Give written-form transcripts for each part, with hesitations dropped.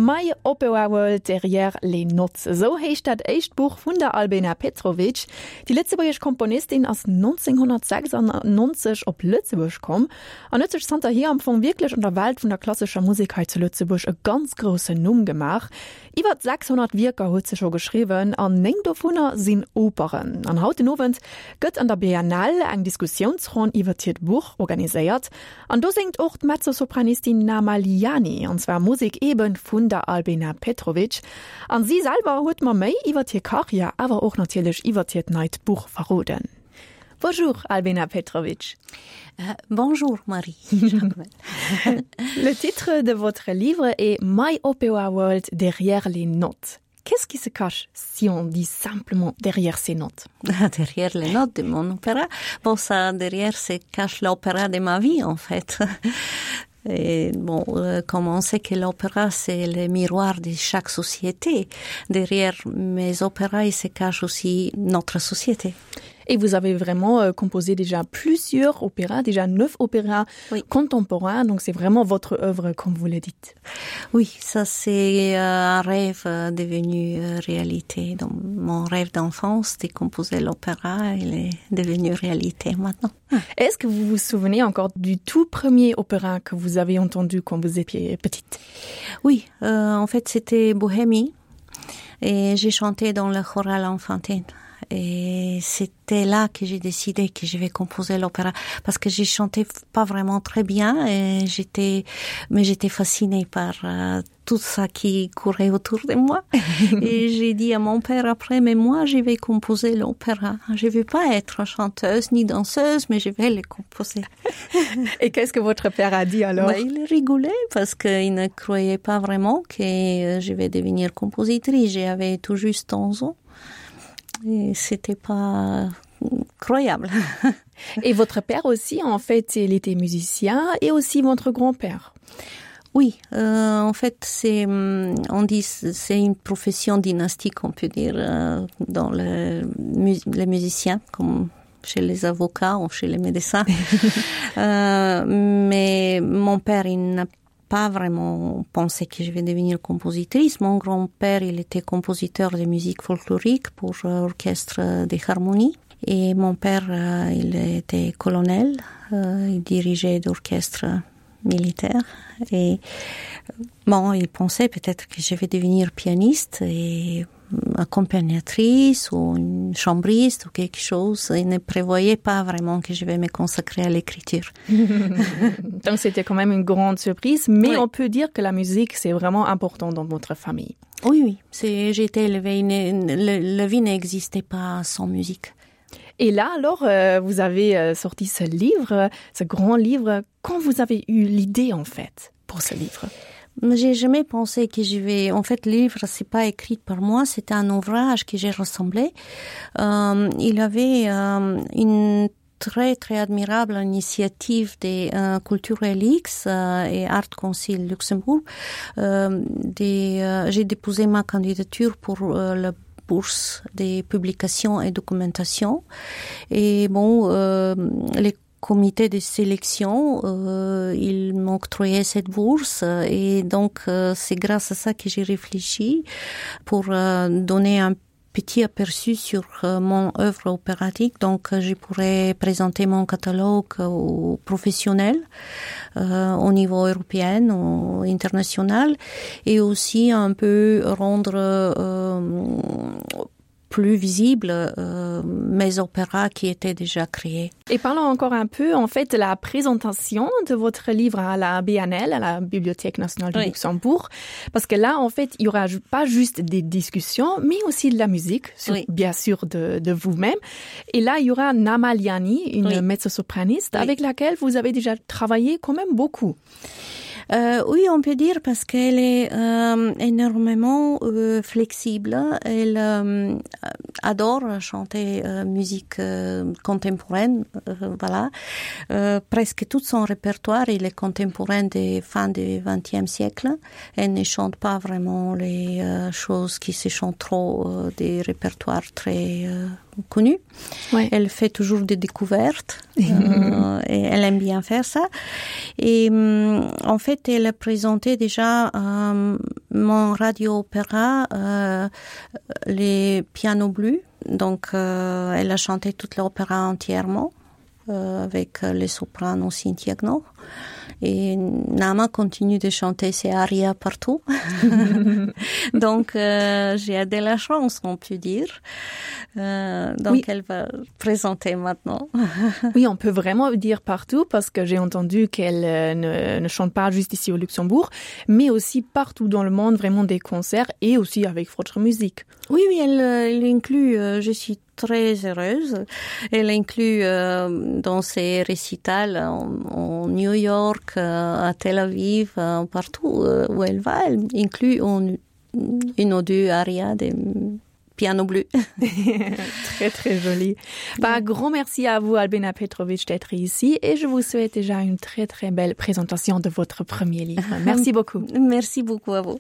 My Opera World derrière les notes, esou heescht dat éischt Buch vun der Albena Petrovic. Déi lëtzebuergesch Komponistin ass 1996 op Lëtzebuerg komm an huet sech zanterhier am Fong wierklech an der Welt vun der klassescher Musek hei zu Lëtzebuerg e ganz groussen Numm gemaach. Iwwer 600 Wierker huet se scho geschriwwen an 9 dovunner sinn Operen. An haut den Owend gëtt an der BNL eng Diskussiounsronn iwwert hiert Buch organiséiert. An do séngt och d'Mezzosopranistin Nama Liani, an zwar Musek eebe vun der Albena Petrovic. An si selwer huet mer méi iwwert hir Karriär, awer och natierlech iwwert hiert neit Buch verroden. Bonjour Albena Petrovic. Euh, bonjour Marie. Le titre de votre livre est My Opera World derrière les notes. Qu'est-ce qui se cache si on dit simplement derrière ces notes Derrière les notes de mon opéra Bon, ça, derrière se cache l'opéra de ma vie, en fait. Et bon, euh, comme on sait que l'opéra, c'est le miroir de chaque société, derrière mes opéras, il se cache aussi notre société. Et vous avez vraiment euh, composé déjà plusieurs opéras, déjà neuf opéras oui. contemporains, donc c'est vraiment votre œuvre comme vous le dites. Oui, ça c'est euh, un rêve euh, devenu euh, réalité. Donc, mon rêve d'enfance de composer l'opéra, il est devenu réalité maintenant. Ah. Est-ce que vous vous souvenez encore du tout premier opéra que vous avez entendu quand vous étiez petite Oui, euh, en fait c'était Bohémie et j'ai chanté dans le choral enfantine. Et c'était là que j'ai décidé que je vais composer l'opéra parce que j'ai chanté pas vraiment très bien et j'étais mais j'étais fascinée par euh, tout ça qui courait autour de moi et j'ai dit à mon père après mais moi je vais composer l'opéra je vais pas être chanteuse ni danseuse mais je vais le composer et qu'est-ce que votre père a dit alors bah, il rigolait parce qu'il ne croyait pas vraiment que euh, je vais devenir compositrice j'avais tout juste 11 ans et c'était pas croyable et votre père aussi en fait il était musicien et aussi votre grand-père Oui, euh, en fait c'est on dit c'est une profession dynastique on peut dire euh, dans le mu les musiciens comme chez les avocats ou chez les médecins euh, mais mon père il n'a pas vraiment pensé que je vais devenir compositrice mon grand-père il était compositeur de musique folklorique pour euh, orchestre des harmonies et mon père euh, il était colonel euh, il dirigeait d'orchestre militaire et bon il pensait peut-être que je vais devenir pianiste et accompagnatrice ou une chambriste ou quelque chose il ne prévoyait pas vraiment que je vais me consacrer à l'écriture donc c'était quand même une grande surprise mais oui. on peut dire que la musique c'est vraiment important dans votre famille oui oui c'est j'ai été élevée une, la vie n'existait pas sans musique et là alors euh, vous avez euh, sorti ce livre ce grand livre quand vous avez eu l'idée en fait pour ce livre J'ai jamais pensé que je vais en fait livre c'est pas écrit par moi c'était un ouvrage que j'ai rassemblé euh, il avait euh, une très très admirable initiative des euh, cultures Elix euh, et Art Council Luxembourg euh, des euh, j'ai déposé ma candidature pour euh, la bourse des publications et documentations et bon euh, les comité de sélection euh, il m'octroyait cette bourse et donc euh, c'est grâce à ça que j'ai réfléchi pour euh, donner un petit aperçu sur euh, mon œuvre opératique donc euh, je pourrais présenter mon catalogue aux professionnels euh, au niveau européen ou international et aussi un peu rendre euh, plus visible euh, mes opéras qui étaient déjà créés. Et parlons encore un peu en fait de la présentation de votre livre à la BNL, à la Bibliothèque nationale du oui. Luxembourg, parce que là en fait il y aura pas juste des discussions, mais aussi de la musique, sur, oui. bien sûr de, de vous-même. Et là il y aura Namaliani, une oui. mezzo-sopraniste oui. avec laquelle vous avez déjà travaillé quand même beaucoup. Euh, oui, on peut dire parce qu'elle est euh, énormément euh, flexible. Elle euh, adore chanter euh, musique euh, contemporaine. Euh, voilà. Euh, presque tout son répertoire, il est contemporain des fins du XXe siècle. Elle ne chante pas vraiment les euh, choses qui se chantent trop euh, des répertoires très euh, connue. Ouais. Elle fait toujours des découvertes euh, et elle aime bien faire ça. Et euh, en fait, elle a présenté déjà euh, mon radio opéra euh, les pianos bleus. Donc euh, elle a chanté toute l'opéra entièrement euh, avec les sopranos Cynthia Gnor. Et Nama continue de chanter ses arias partout. donc euh, j'ai de la chance, on peut dire. Euh, donc oui. elle va présenter maintenant. oui, on peut vraiment dire partout parce que j'ai entendu qu'elle euh, ne, ne chante pas juste ici au Luxembourg, mais aussi partout dans le monde vraiment des concerts et aussi avec votre musique. Oui, oui, elle, euh, elle inclut, euh, je suis très heureuse. Elle inclut euh, dans ses récitals en, en New York, euh, à Tel Aviv, euh, partout euh, où elle va, elle inclut en, une ou deux arias des piano bleu. très très joli. Bah, grand merci à vous Albena Petrovic d'être ici et je vous souhaite déjà une très très belle présentation de votre premier livre. Merci beaucoup. Merci beaucoup à vous.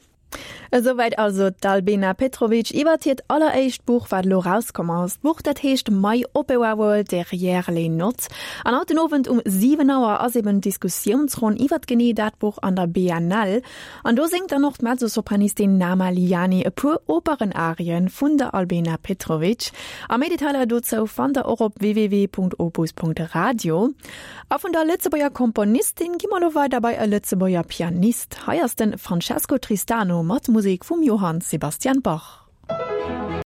Esouwäit also d'Albena Petrovic iwwert hiert alleréischt Buch, wat elo erauskomm ass. D'Buch dat heescht My Opera World, derrière les notes. An haut den Owend um 7 Auer ass eben d'Diskussiounsronn iwwert genee dat Buch an der BNL. An do séngt dann och d'Mezzosopranistin Nama Liani e puer Operenarien vun der Albena Petrovic. A méi Detailer dozou fannt der och op www.opus.radio. A vun der Lëtzebuerger Komponistin gi mer elo weider bei e Lëtzebuerger Pianist. Hei ass de Francesco Tristano mat Musek vum Johann Sebastian Bach.